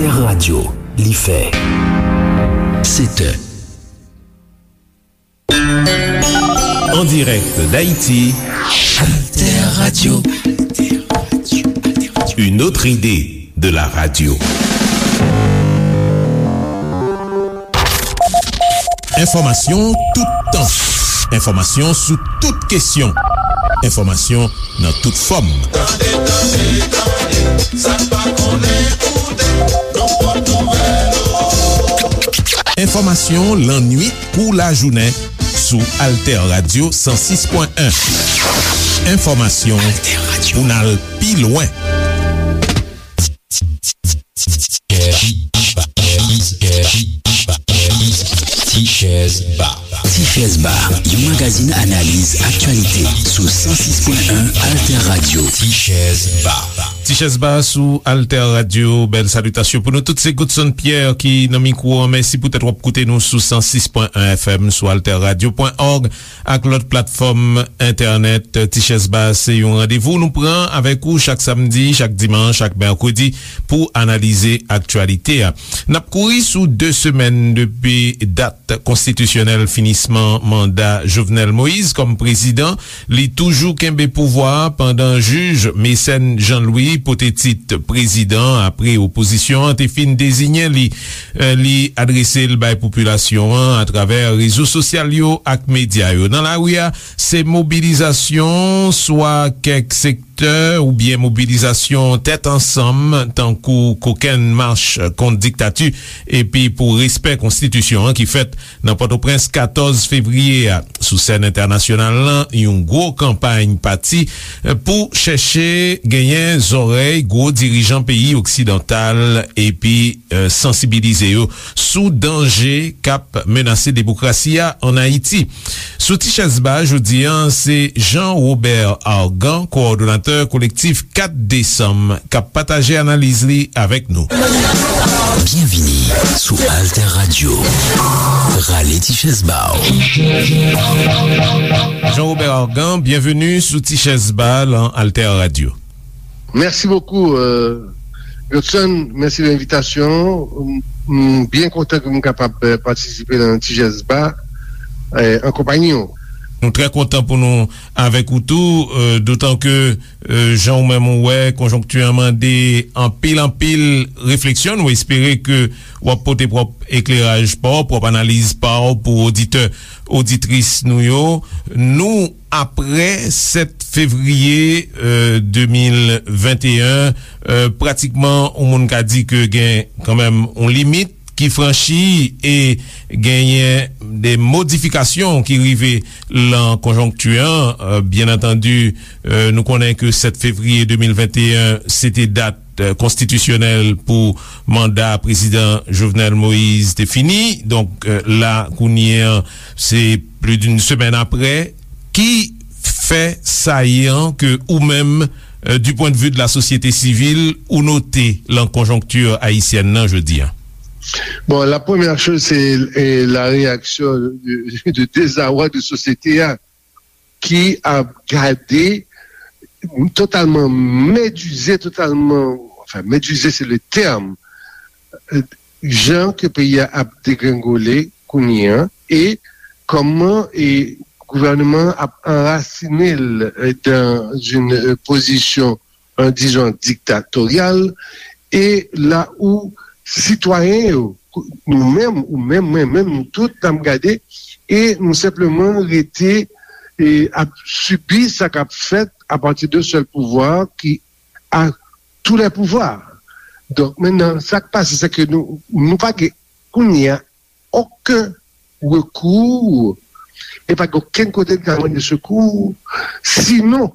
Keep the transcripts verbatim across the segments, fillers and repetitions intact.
Alter Radio, li fè sèt è. En direct d'Haïti, Alter Radio. Une autre idée de la radio. Enfòmasyon toutan. Enfòmasyon sou tout kesyon. Enfòmasyon nan tout fòm. Tande, tande, tande, sa n pa konnen, koute, nou pot nouvèl ou. Enfòmasyon lannuit kou lajounen sou Alter Radio san sis pwen en. Enfòmasyon pou n al pi lwen. Ti Chèz Ba. Ti Chèz Ba, yon magazin analiz aktyalite sou san sis pwen en Alter Radio. Ti Chèz Ba. Ti Chèz Ba sou Alter Radio. Bèl salitasyon pou nou tout. Se Godson Pierre ki nan mikwo an. Mèsi poutèt w ap koute nou sou san sis pwen en F M, sou alter radio pwen org ak lòt platfòm entènèt. Ti Chèz Ba se yon randevou nou pran avèk ou chak samdi, chak dimanch, chak mèkredi pou analize aktyalite a. N ap kouri sou de semèn depi dat konstitisyonèl finisman manda Jovenel Moïse kòm prezidan. Li toujou kenbe pouvwa a pandan jij Mécène Jean Louis pote tit prezidan apre opozisyon an te fin deziyen li. Eh, li adrese l bay popilasyon an atravè rezo sosyal yo ak medya yo. Nan lari a, se mobilizasyon, swa kèk sektè oubyen mobilizasyon tèt ansanm, tankou kokenn mach kont diktati epi pou respè konstitisyon an ki fèt nan Pòtoprens katòz fevriye a. Sou sèn entènasyonal lan, yon gwo kanpay pati, eh, pou chèche genyen zòrèy gwo dirijan peyi oksidantal epi, eh, sansibilize yo sou danje k ap menase demokrasi a ann Ayiti. Sou Ti Chèz Ba jodi a, se Jean Robert Argan, kowòdonatè kolektif kat desanm, k ap pataje analiz li avèk nou. Byenvini sou Alter Radio. Rale ti chèz ba w. Jean Robert Argan, byenveni sou Ti Chèz Ba lan Alter Radio. Mèsi bokou, euh, Godson. Mèsi de envitasyon. M, m byen kontan ke m kapab, euh, patisipe nan Ti Chèz Ba, euh, an konpayi w. Nou trè kontan pou nou avèk ou tou, euh, dotan ke, euh, jan ou menm ou wè, konjonkti an mande anpil, anpil refleksyon. Nou espere ke w ap pote pwòp ekleraj pa w, pwòp analiz pa w pou oditè, oditris nou yo. Nou, apre sèt fevriye, euh, de mil venteyen, euh, pratikman, yon moun ka di ke gen kanmenm yon limit ki franchi e genyen de modifikasyon ki rive lan konjonkti an. Euh, byen antandi, euh, nou konnen ke sèt fevriye de mil venteyen, se te dat, euh, konstitisyonèl pou manda prezidan Jovenel Moïse te fini. Donk, euh, la, kounye an, se plis d'une semèn apre. Ki fè sayan ke ou menm, euh, du point de vue de la société civile, ou note lan konjonkti ayisyèn nan jodi a? Bon, la première chose, c'est, euh, la réaction de, de désarroi de société a, ki ap gade totalman medize, totalman, enfin, medize, c'est le terme, euh, jan ke peyi a ap degrengole kounye an, e kòman e gouvènman ap anrasine l, euh, dans une, euh, position, euh, disons, dictatoriale, e la où sitwayen yo, nou menm, ou menm, mwen menm, nou tout, n ap gade, e nou senpleman rete, e ap sibi sa k ap fèt à partir d'un seul pouvoir qui a tous les pouvoirs. Donk, mentnan, sa k pase, se ke nou, nou pa gen, kounye a, okenn rekou, e pa gen okenn kote n ka mande sekou, sinon,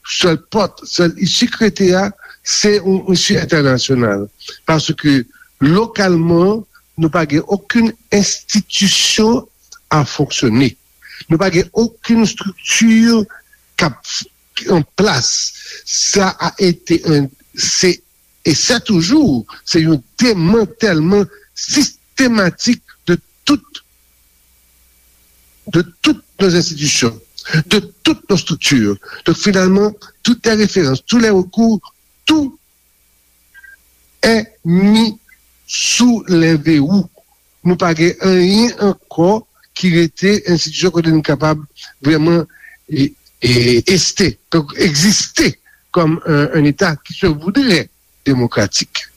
sèl pòt, sèl isi k rete a, se yon isi entènasyonal. Paske, lokalman, nou pa gen okenn enstitisyon a fonksyone. Nou pa gen okenn estrikti k ap an plas. Sa a ete, se, e se toujou, se yon demantèlman sistematik de tout, de toutes nos institutions, de toutes nos structures. Donc, finalement, toutes les références, tous les recours, tout est mis sou lè verou. Nou pa gen anyen ankò ki rete enstitisyon kote nou kapab vrèman e, e, este, egziste kòm un, un État qui se voudrait démocratique.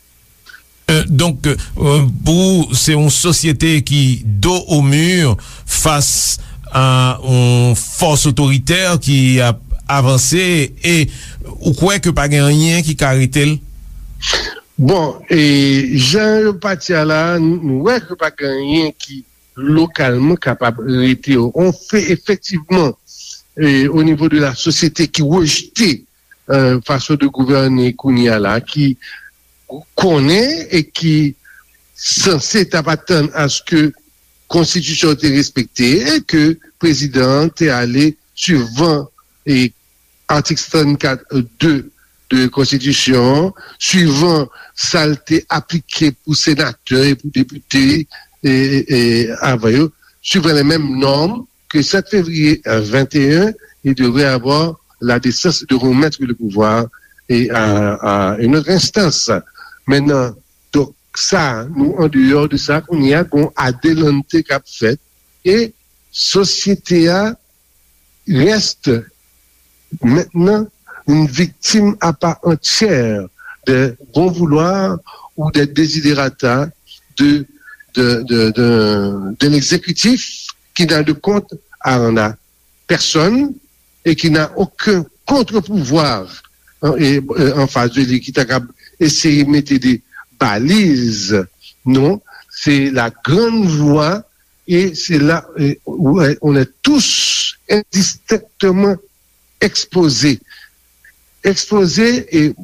Euh, donk, euh, pou ou, se yon sosyete ki do o mi fas a yon fòs otoritè ki ap avanse e ou kwè ke pa gen anyen ki ka rete l? Bon, e jan yo pati a la, nou wè ke pa gen anyen ki lokalman kapab rete yo. On fe efektivman e, o nivo de la sosyete ki rejte e, fason de gouvène kounye a la, ki konnen e ki sanse t ap atann aske konstitisyon te respekte e ke prezidan an te ale suivan e atik sèt sèt kat de de konstitisyon an, suivan sa l te aplike pou senatè e pou depite e, e, e avan yo, suivant les mêmes normes que sept février vingt et un, il devrait avoir la décence de remettre le pouvoir et à, à une autre instance. Maintenant, donk sa, nou andeyò de sa, kounye a gon adelante k ap fèt e sosyete a reste maintenant une victime à part entière des bons vouloirs ou des desiderata de, de, de, de, de l'exécutif qui n'a de compte à rendre à personne et qui n'a aucun contre-pouvoir en, et, euh, en face de lui qui est capable d'essayer de mettre des balises. Non, c'est la grande voie et c'est là euh, où euh, on est tous indistinctement exposés. Exposés et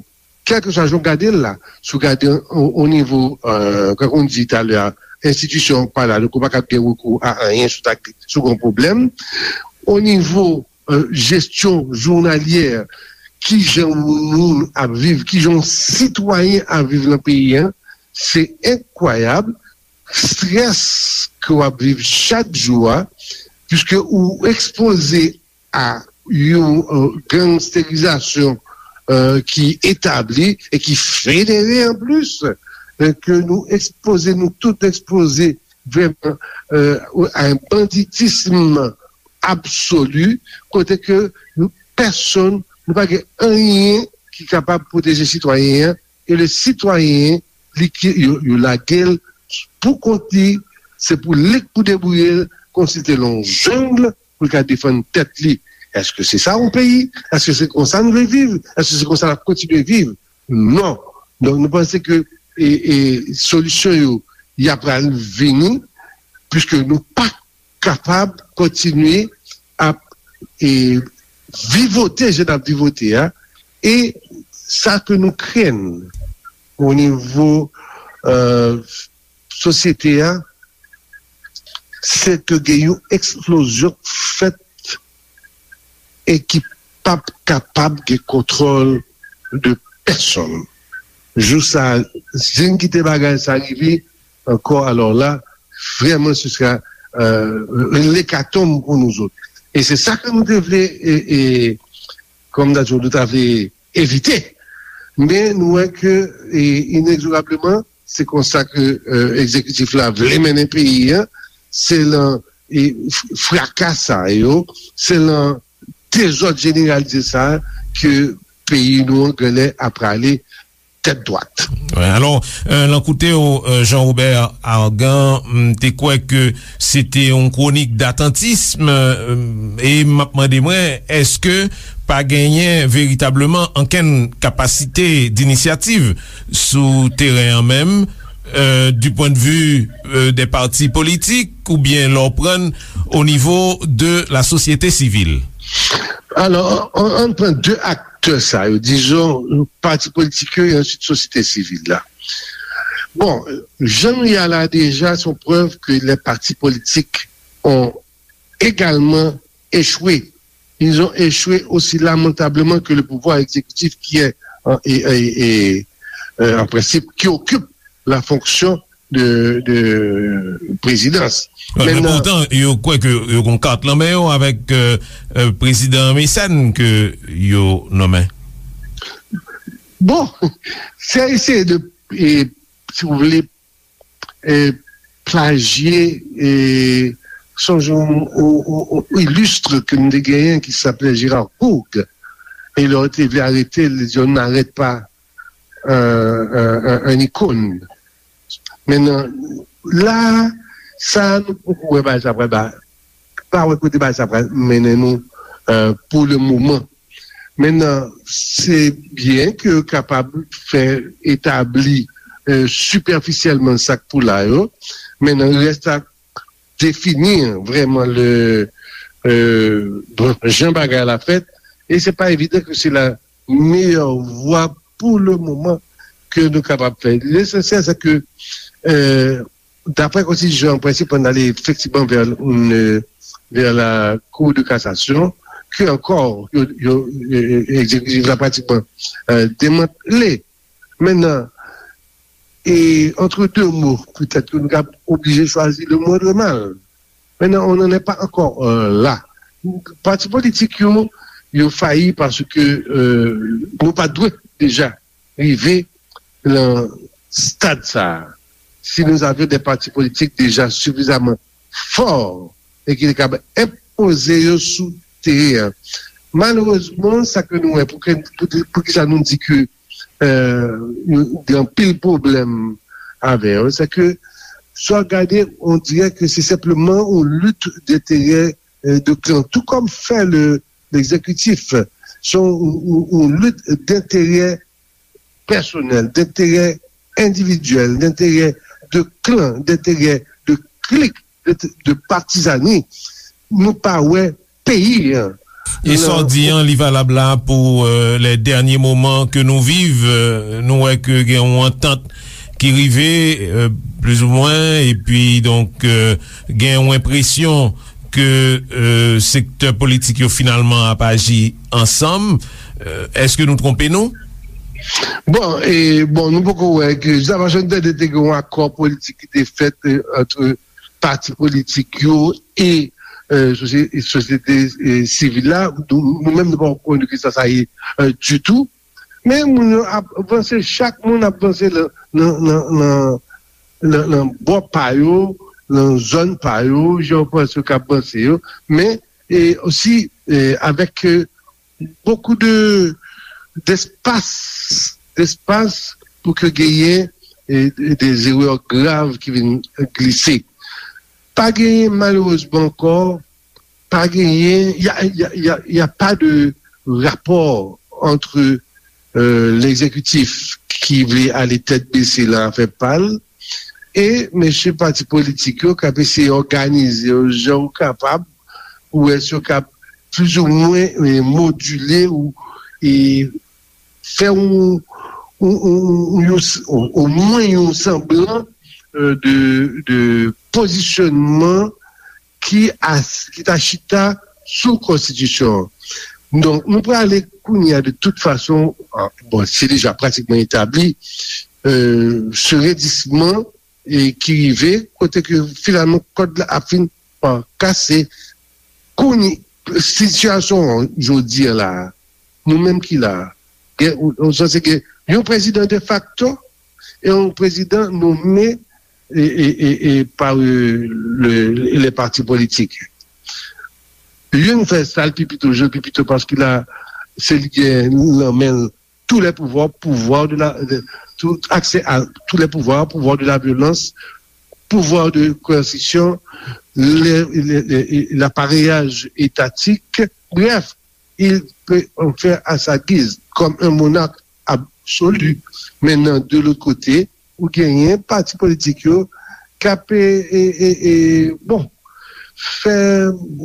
kèlkeswa jan w gade l la, si w gade o, o nivo, euh, kan w di talè a, enstitisyon pa la, donk ou pa kab gen rekou a anyen si w ta, si w gen yon pwoblèm. O nivo euh, jesyon jounalyè, kijan yon moun ap viv, kijan yon sitwayen ap viv nan peyi a, se enkwayab, strès ke w ap viv chak jou a, piske ou ekspoze a yon euh, gangsterizasyon euh, ki etabli e ki federe an plis, euh, ke nou ekspoze, nou tout ekspoze vrèman euh, a yon banditism absoli, kote ke nou, pèsonn, nou pa gen anyen ki kapab pwoteje sitwayen an, e le sitwayen, li ki, yo, yo lage l pou kont li, se pou li k pou debouye l, kòmsi l te nan yon jeng, pou l ka defann tèt li. Èske se sa yon peyi? Èske se konsa nou vle viv? Èske se konsa n ap kontinye viv? Non. Donk, nou panse ke e, e, solisyon yo, y ap pral vini, piske nou pa kapab kontinye ap e, vivote jan n ap vivote a, e sa ke nou krenn o nivo euh, sosyete a, se ke gen yon eksplozyon k fèt e ki p ap kapab gen kontwòl de pèsonn. Jou sa a, si n kite bagay sa rive ankò, alò la, vrèman, se sera euh, lekatonm pou nou zòt. E se sa ke nou te vle, e, e, kòm nou ta di, nou ta vle evite. Men nou wè ke e, inegzorableman, se konsa ke euh, egzekitif la vle mennen peyi a, se lan e, fraka sa yo, se lan dezòd jeneralize sa ke peyi nou an genlè ap prale tèt dwat. Alò, lan koute w, Jean Robert Argan, m te kwè ke se te yon kwonik datantism, e m ap mande mwen, èske pa genyen veritableman ankenn kapasite dinisyativ sou teren an menm, du point de vue des partis politiques, oubyen lè w pran o nivo de la sosyete sivil? Alò, ann pran de aktè sa yo, dizon, pati politik yo e answit sosyete sivil la. Bon, jan nou ye a la deja, se yon prèv ke les partis politiques ont également échoué. Ils ont échoué aussi lamentablement que le pouvoir exécutif qui est en, et, et, et, euh, en principe, qui occupe la fonction de, de présidence. Men poutan, yo kwè ke yo gon kat lan men yo avèk prezidan Mecène ke yo nonmen. Bon, se eseye de, e, si w vle, e, plajye, e, sonje yon, yon, yon, yon ilistre ke m te genyen ki se aple Gérard Gourgue. E lè yo te vle arete l, li di, "On n'arrête pas un, un, un, un icône." Mentnan, la, sa nou poko wè bagay sa pral ba, pa wè kote bagay sa pral mennen nou, euh, pou le moman. Mentnan, se byen ke yo kapab fè etabli, euh, sipèfisyèlman sa k pou la yo. Mentnan, rès a defini vrèman le, euh, bon, jan bagay la fèt. E se pa evidan ke se la meyè vwa pou le moman ke nou kapab fè. Lesansyèl, se ke, euh, daprè konstitisyon an, prensip an ale efektivman vè, euh, vè la Cour de cassation, ke ankò, yo, yo, yo, egzekitif la pratikman, euh, demantle. Mentnan, e, entre deux mots, petèt ke nou ka oblije chwazi le moindre mal. Mentnan, on n'en est pas encore, euh, là. Pati politik yo, yo fayi paske, euh, nou pa dwe deja rive nan stad sa a. Si nous avions des partis politiques déjà suffisamment forts e ki te kapab enpoze yo sou teren an. Malerezman, sa ke nou wè, pou, ke- pou, pou ki sa nou di ke, euh, nou gen anpil pwoblèm avè yo, se ke sa w gade, on dirait que c'est simplement une lutte d'intérêt, euh, de clan, tout comme fait le, l'exécutif. C'est une, une, une lutte d'intérêt personnel, d'intérêt individuel, d'intérêt de clan, d'intérêt de clique, de, de partisanerie. Nou pa wè peyi an. E sa w di an, li valab la pou, euh, les derniers moments que nous vivons. Euh, nou wè ke gen yon antant ki rive, euh, plizoumwen, epi donk, euh, gen yon enpresyon ke, euh, sektè politik yo finalman ap aji ansanm. Euh, èske nou twonpe nou? Bon, e, bon, nou poko wè ke, jiskaprezan, nou tande te gen yon akò politik ki te fèt, euh, ant pati politik yo e, euh, sosye- sosyete, euh, sivil la. Nou, nou menm, nou pa konnen ki sa sa ye, euh, ditou. Men moun yo ap vanse, chak moun ap vanse nan, nan, nan, nan, nan, nan bò pa yo, nan zòn pa yo, jan yo panse yo k ap vanse yo. Men, e osi, e, avèk, euh, beaucoup de, d'espace, d'espace pou ke genyen, e, des erreurs graves ki vin glise. Pa genyen, malerezman ankò, pa genyen, y a, y a, y a, y a pas de rapport entre, euh, l'exécutif ki vle ale tèt bese nan afè pa l e mesye pati politik yo k ap eseye òganize yo jan yo kapab pou wè si yo kab plizoumwen, e, modile ou, e, fè yon, yon, yon, yon, yon, omwen yon sanblan, euh, de, de pozisyonman ki, as, ki ta chita sou konstitisyon an. Donk, nou prale kounye a de tout fason, ah, bon, se deja pratikman etabli, euh, se redisman e ki rive kote ke finalman kòd la ap fin pa kase. Kounye, sitiyasyon an jodi a la, nou menm ki la, gen, ou, ou sanse gen yon prezidan defakto e yon prezidan nome e, e, e, e pa, euh, le, le pati politik. Youn fè sa l pi pito, je l pi pito paske la, se li gen nan men l tous les pouvoirs, pouvoir de la, de, tout accès à tous les pouvoirs, pouvoir de la violence, pouvoir de coercition, le, le, le, l'appareillage étatique. Bref, il peut en faire à sa guise, comme un monarque absolu. Maintenant, de l'autre côté, ou genyen pati politik yo k ap, e, e, e, e, bon, fè,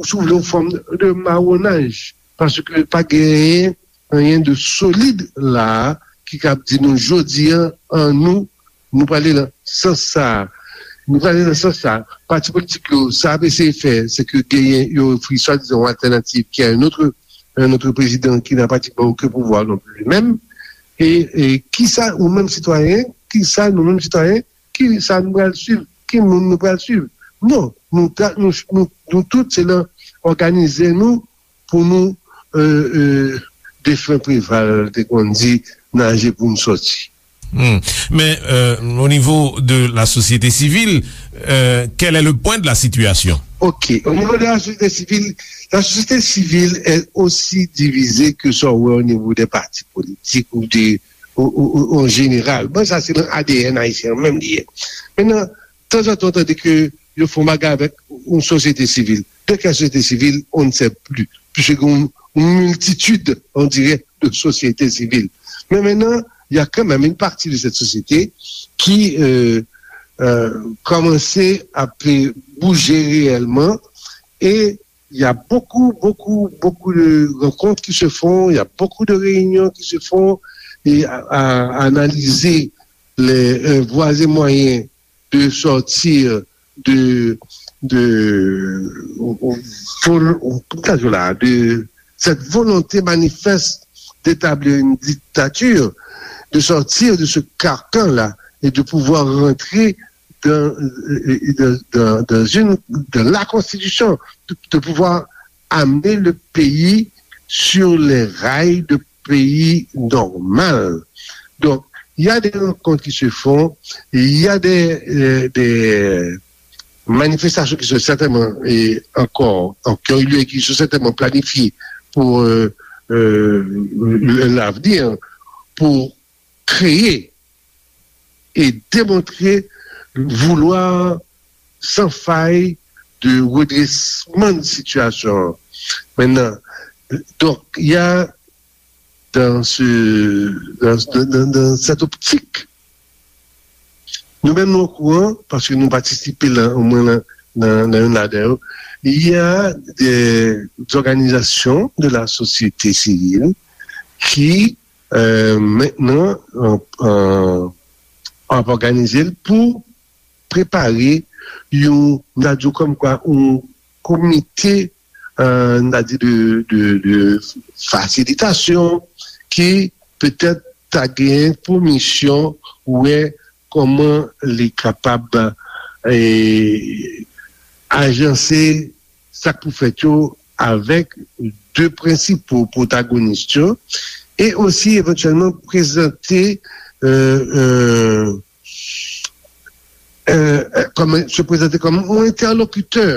si w vle, yon fòm de mawonaj, paske pa genyen anyen de solid la ki kab di nou jodi an, an nou, nou prale nan sans sa a. Nou prale nan sans sa a. Pati politik yo, sa ap eseye fè, se ke genyen, yo ofri swadizan yon altènativ ki a un autre, un autre président qui n'a pratiquement aucun pouvoir non plus lui-même. E, e kisa ou menm sitwayen, kisa nou menm sitwayen, kisa nou pral swiv, ki moun nou pral swiv? Non, nou, ta, nou, nou, nou tout se nan òganize nou pou nou, euh, euh, defen Preval te konn di, naje pou n sòti. Hmm. Mais euh, au niveau de la société civile, euh, quel est le point de la situation? Ok, au niveau de la société civile, la société civile est aussi divisée que ça, ouais, au niveau des partis politiques ou des ou, ou, ou, en général. Bon, ça, c'est dans l'A D N haïtien, même lié. Maintenant, de temps en temps, on dit que ils font bagarre avec une société civile. De quelle société civile, on ne sait plus. Puisque une, une multitude, on dirait, de sociétés civiles. Mais maintenant, il y a quand même une partie de cette société qui euh, euh, commençait à bouger réellement et il y a beaucoup, beaucoup, beaucoup de rencontres qui se font, il y a beaucoup de réunions qui se font et à, à analyser les euh, voies et moyens de sortir de, de, de cette volonté manifeste d'établir une dictature, de sortir de ce carcan-là et de pouvoir rentrer dans, dans, dans, une, dans la Constitution, de, de pouvoir amener le pays sur les rails de pays normal. Donc, il y a des rencontres qui se font, il y a des, euh, des manifestations qui sont certainement et encore, encore lieu, qui sont certainement planifiées pour euh, euh, l'avenir, pour créer et démontrer vouloir sans faille de redressement de situation. Maintenant, donc, il y a dans, ce, dans, dans, dans cette optique, nous-mêmes, nous au courant, parce que nous participons là, au moins là, dans, dans une adhère, il y a des organisations de la société civile qui euh, maintenant, ap, euh, ap òganize l pou prepare yon, n a di kòmkwa, yon komite, euh, n a di de, de, de fasilitasyon ki petèt ta gen pou misyon wè kòman li kapab eh, ajanse sa k pou fèt yo avèk de prensipal pwotagonis yo e osi evantyèlman prezante euh, euh, euh, kòm, se prezante kòm yon entèlokitè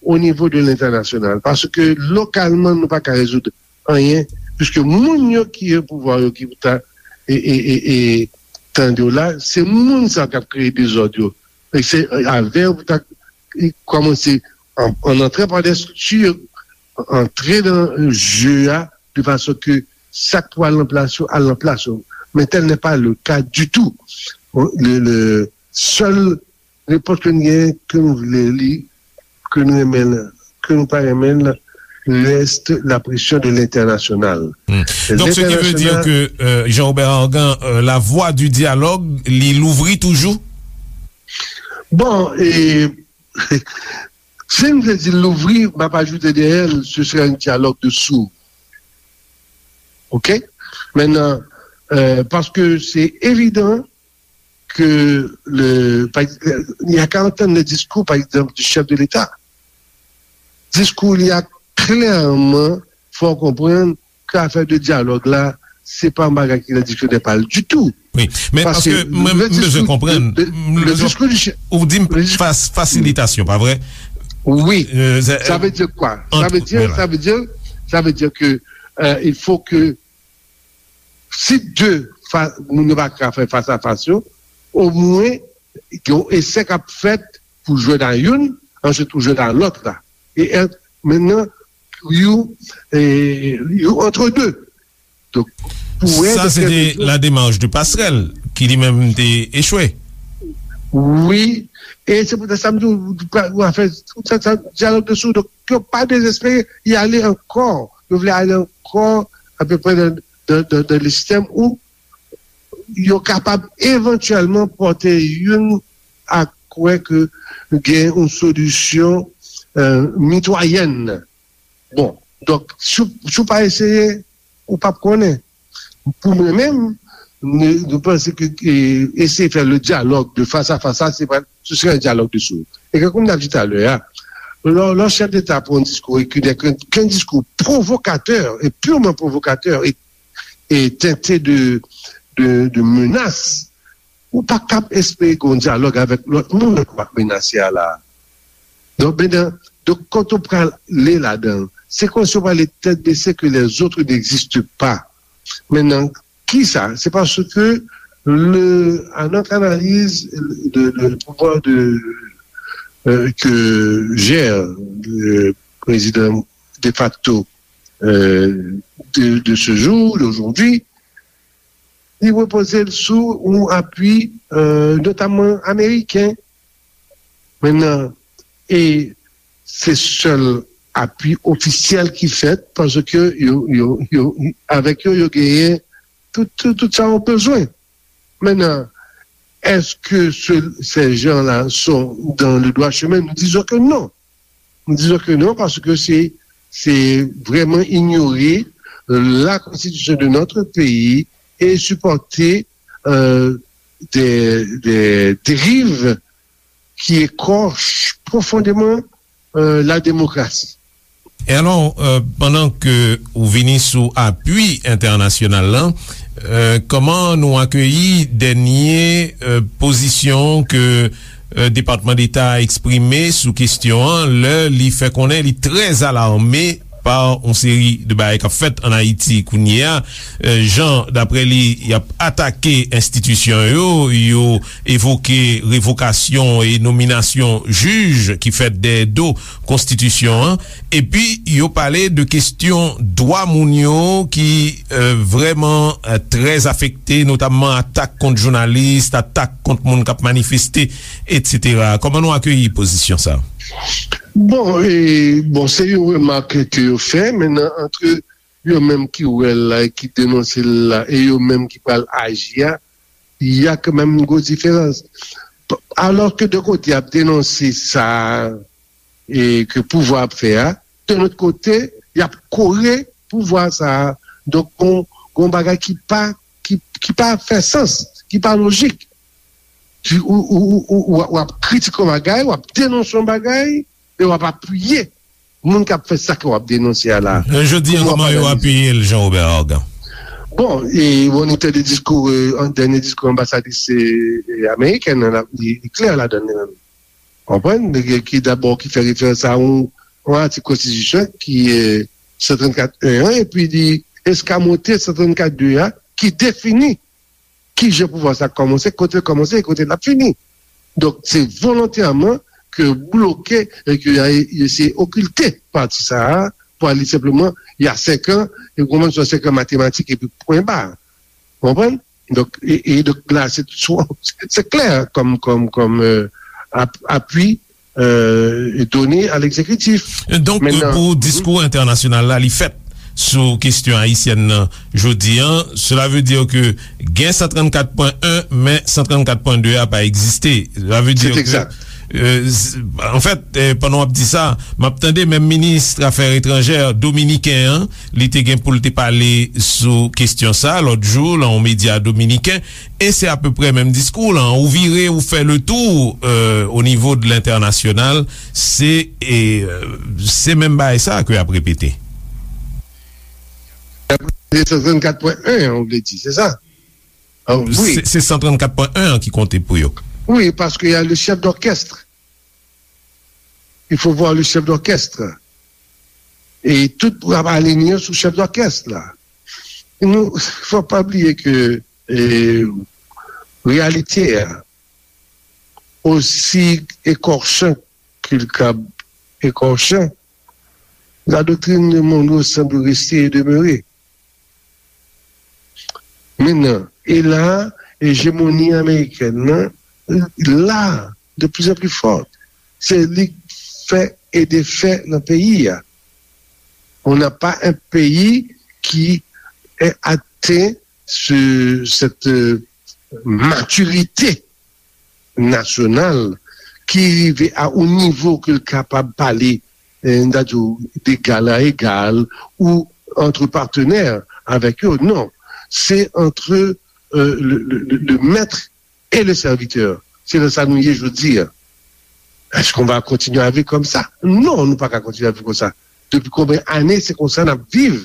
o nivo de lentènasyonal paske lokalman nou pa ka rezoud anyen piske moun yo ki gen pouvwa yo ki pou ta e, e, e, e tande w la se moun sa k ap kreye dezòd yo e se avè w pou ta kòmanse an, an antre pa de strikti antre nan je a de fason ke sa k pou al nan plas yo al nan plas yo men tel n'est pas le cas du tout le, le sèl repons ke n gen ke nou vle li ke nou renmen l ke nou pa renmen l reste la pression de l'international. Donc, ce qui veut dire que euh, Jean-Robert Argan, euh, la voie du dialogue, li louvri toujou? Bon, e, si m te di louvri, m ap ajoute dèyè l, ce serait un dialogue de sourds. Ok? Maintenant, euh, parce que c'est évident ke le, pa, y a ka antann le diskou, pa egzanp, du chef de l'État. Diskou li a klèman fè w konprann ke afè de dyalòg la, se pa yon bagay ki nan diksyonè pa l ditou. Wi, men paske mwen m bezwen konprann. Ou di m fasilitasyon, pa vre? Wi. Sa vle di kwa? Sa vle di, sa vle di, sa vle di ke euh, il faut que si de moun yo pa ka fè fas a fas yo, omwen gen yon esè k ap fèt pou jwenn a youn, answit pou jwenn a lòt la. E mentnan, you, you entre deux. Donk, pou wè. Sa se te la démarche de Passerelle ki li menm te echwe. Wi, e se poutèt sa m di w afè dyalòg de sou, donk yo pa dezespere, y ale ankò, yo vle ale ankò apeprè nan, nan, nan, nan le sistèm ou yo kapab evantyèlman pòte youn a kwè ke gen yon solisyon euh, mitwayèn. Bon, donk, si, si w pa eseye, ou p ap konnen. Pou mwen menm, nou panse ke eseye fè le dyalòg de fas a fas la, se pa, se sere yon dyalòg de sou. E ke konm n ap di talè a, lò, lò chèf deta pran yon diskou e ki nè ke, ke yon diskou pwovokatè e pirman pwovokatè e, e tente de, de, de menas, ou pa kab espere gen yon dyalòg avèk lòt moun ke w ap menase a la. Donk, mennan, donk, quand on prale ladan, se kòmsi w prale tèt bese que les autres n'existent pas. Mennan, kisa? C'est parce que le, à notre analyse, le, le pouvoir de, euh, que gère le président de facto euh, de, de ce jour, d'aujourd'hui, li repoze l sou yon apui, euh, notamman ameriken. Mennan, e se sèl apui ofisyèl ki fèt paske yo, yo, yo, avèk yo, yo genyen tout, tout, tout sa yo bezwen. Maintenant, est-ce que ce- ces gens-là sont dans le droit chemin? Nous disons que non. Nous disons que non parce que c'est c'est vraiment ignorer la constitution de notre pays et supporter euh, des, des dérives qui écorchent profondément euh, la démocratie. E alò, pandan ke ou vini sou apui entènasyonal la, kòman nou akeyi dènye pozisyon ke Depatman Deta a eksprime sou kesyon an, lè li fè konnen li trè alarme pa yon seri de bagay k ap fèt ann Ayiti kounye a, jan, daprè li, y ap atake enstitisyon yo, yo evoke revokasyon e nominasyon jij ki fèt dèyè do konstitisyon an, epi yo pale de kesyon dwa moun yo ki vrèman trè afekte, notamman atak kont jounalis, atak kont moun k ap manifeste, etsetera. Kòman nou akeyi pozisyon sa a? Bon, e, bon, se yon remak ke yo fè, men nan, antre yo menm ki wè l la e ki denonse l la e yo menm ki pral aji a, y a kanmenm yon gwo diferans. Alòske de kote y ap denonse sa e ke pouvwa ap fè a, de lòt kote, y ap kore pouvwa sa a. Donk, gon, gon bagay ki pa, ki, ki pa fè sans, ki pa lojik. Ou, ou, ou, ou, w ap kritike yon bagay, w ap denonse yon bagay, e w ap apiye moun k ap fè sa ke w ap denonse a la. Jodi a, kòman yo apiye l, Jean Robert Argan? Bon, e, bon, nou tande diskou, an dènye diskou anbasadris amerikèn nan, li klè ladan l, li menm. Konprann? Ki dabò, ki fè referans a yon, yon atik konstitisyon ki, e, san trannkat en an, epi li eskamote san trannkat de a, ki defini ki jan pouvwa sa kòmanse, kote l kòmanse e kote l ap fini. Donk, se volontèman ke bloke e ke y a eseye okilte pati sa a pou al li senpleman, y a senk an, e kòmanse senk an matematik epi pwen ba. Ou konprann? Donk, e, e donk la, se, se klè kòm, kòm, kòm apui done a legzekitif. Donk, pou diskou entènasyonal la, li fèt sou kesyon ayisyèn nan jodi a, sela ve di ke gen san trannkat pwen en, men san trannkat pwen de a pa egziste. Sela ve di ke, anfèt, pandan w ap di sa, m ap tande menm minis afè etranjè dominiken an, li te gen pou l te pale sou kesyon sa lòt jou lan yon medya dominiken, e se apeprè menm diskou lan. Ou vire, ou fè le tou o nivo de lentènasyonal, se, e, se menm bagay sa ke y ap repete. Se san trannkat pwen en an, ou vle di, se sa? Se san trannkat pwen en an ki konte pou yo. Wi, paske y a le chèf dòkèst. Il faut voir le chef d'orchestre. E tout pou ap alinye sou chèf dòkès la. Nou, fò pa bliye ke, e, reyalite a, osi ekòchan ke l kab ekòchan, la doctrine de Monroe semble rester et demeurer. Mennan, e la, ejemoni amerikèn nan la de plus en plus forte. Se li k fè e defè nan peyi a. On n'a pas un pays qui est atteint ce, cette euh, maturité nasyonal ki rive a yon nivo ke l kapab pale, eh, n ta di w, d'égal à égal ou entre partenaires avec eux. Non, c'est entre euh, le, le, le, le maître et le serviteur. C'est dans ça nous y est, je veux dire. Est-ce qu'on va continuer à vivre comme ça? Non, nou pa ka kontinye ap viv konsa. Depi konbyen ane se konsa n ap viv?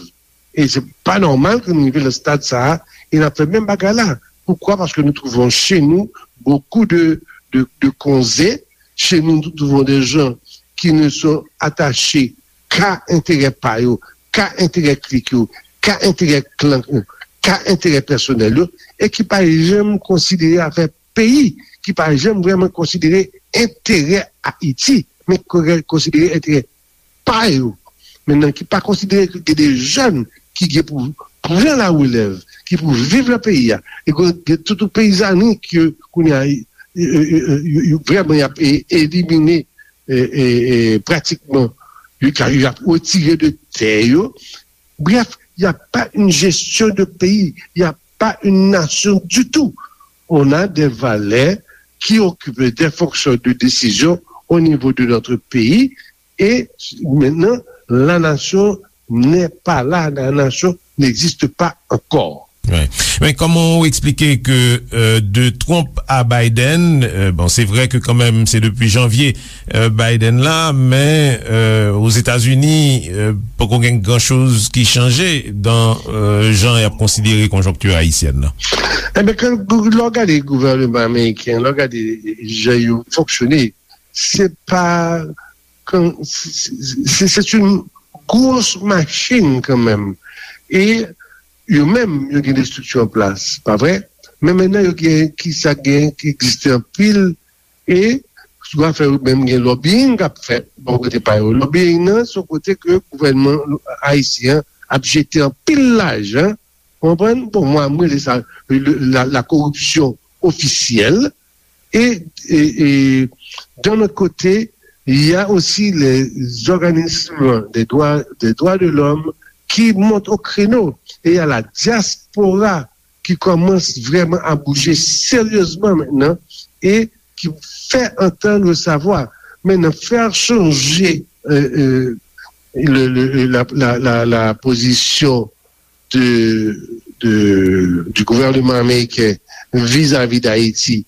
E se pa nòmal ke nou rive nan stad sa a e n ap fè menm bagay la. Pourquoi? Parce que nous trouvons chez nous beaucoup de, de, de konze. Chez nous, nous trouvons des gens qui ne sont attachés qu'à intérêt pa yo, qu'à intérêt klik yo, qu'à intérêt klan yo, qu'à intérêt pèsonèl yo, e ki pa janm konsidere afè peyi, ki pa janm vrèman konsidere enterè Ayiti, men konsidere enterè pa yo. Mentnan, ki pa konsidere ke gen de jèn ki gen pou pran larelèv, ki pou viv nan peyi a. E gen tout peyizani ke kounye a, yo, yo, yo, yo, yo vrèman y ap e- elimine, e, e, e, pratikman, yo ka- y ap retire de tè yo. Bref, il n'y a pas une gestion de pays, il n'y a pas une nation du tout. On a des valeurs qui occupent des fonctions de décision au niveau de notre pays. Et maintenant, la nation n'est pas là, la nation n'existe pas encore. Men kòman ou eksplike ke euh, de Trump a Biden, euh, bon, se vre ke kanmenm se depi janvye euh, Biden la, men euh, Ozetazini euh, poko gen gran choz ki chanje dan euh, jan y ap konsidere konjonkti ayisyèn nan. Enben, kan lè w gade gouvènman ameriken, lè w gade jan yo fonksyone, se pa kan se se- se- se yon gwo machin kanmenm. E yo menm, yo gen de estrikti an plas, pa vre? Men mentnan, yo gen ki sa gen ki egziste anpil. E sou afè yo menm, gen lobbying k ap fèt bò kote pa yo. Lobbying nan se yon kote ke gouvènman ayisyen an ap jete anpil lajan. Ou konprann? Bon, mwen, mwen rele sa le- la, la koripsyon ofisyèl. E, e, e d'un autre côté, il y a aussi les organismes des droits, des droits de l'homme qui montent au créneau. Et il y a la diaspora qui commence vraiment à bouger sérieusement maintenant et qui fait entendre sa voix. Maintenant, faire changer euh, euh, le, le- la, la, la, la position de, de, du gouvernement américain vis-à-vis d'Haïti,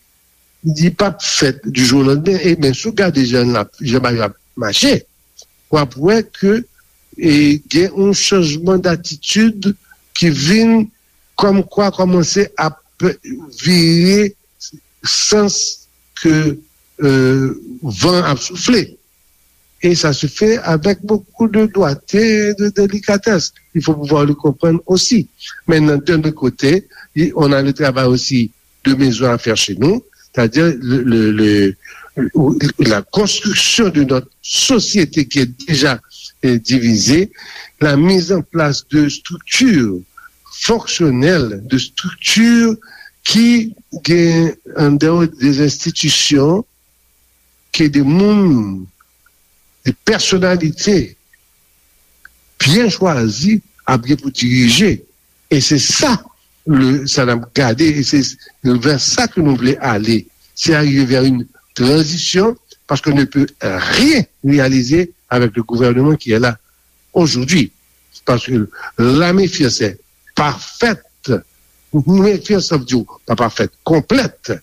li p ap fèt du jour au lendemain. E men, si w gade jan l ap- jan bagay yo ap mache, w ap wè ke e, gen yon chanjman datitid ki vin kòmkwa kòmanse ap vire sans ke euh, van ap soufle. Et ça se fait avec beaucoup de doigté, de délicatesse. Il faut pouvoir le comprendre aussi. Maintenant, d'un autre côté, on a le travail aussi de maison à faire chez nous, c'est-à-dire le, le, le, la construction de notre société qui est déjà euh, divisée, la mise en place de structures fonctionnelles, de structures qui, en dehors des institutions, ke de moun, de pèsonalite byen chwazi ap gen pou dirije. E se sa le, sa n ap gade, e se vè sa ke nou vle ale. Se arive vè yon tranzisyon, paske on ne peut rien réaliser avec le gouvernement qui est là aujourd'hui. Parce que la méfiance est parfaite. Méfiance, ça veut dire pas parfaite, complète.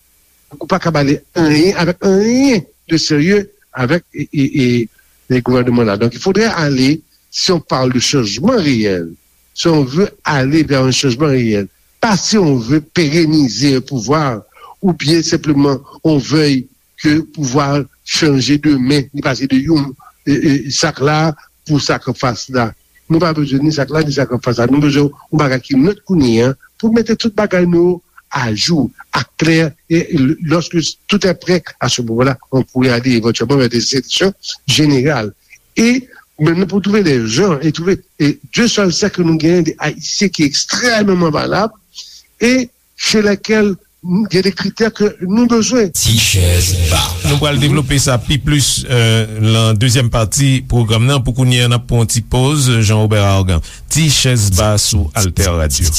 Ou pa ka bale anyen avec rien de sérieux avec et, et, et les gouvernements là. Donc il faudrait aller, si on parle de changement réel, si on veut aller vers un changement réel, pas si on veut pérenniser un pouvoir ou bien simplement on veuille ke pouvwa chanje demen, li pase de yon e, e, sak la pou sak anfas la. Nou pa bezwen ni sak la ni sak anfas la. Nou bezwen yon bagay ki nèt kounye a pou mete tout bagay nou ajou, aklè, e lòske tout est prêt, à ce moment-là, on pourrait aller éventuellement vers des élections générales. E men nou pou twouve lè jan e twouve, e Dieu seul sait ke nou genyen de Ayisyen ki ekstrèmeman valab e chez lesquels gen de kritè ke nou bezwen. Ti chèz ba. Nou pral devlope sa pi plis euh, lan dezyèm pati pwogram nan. Pou kounye a, n ap pran yon ti poz, Jean Robert Argan. Ti chèz ba sou Alter Radio.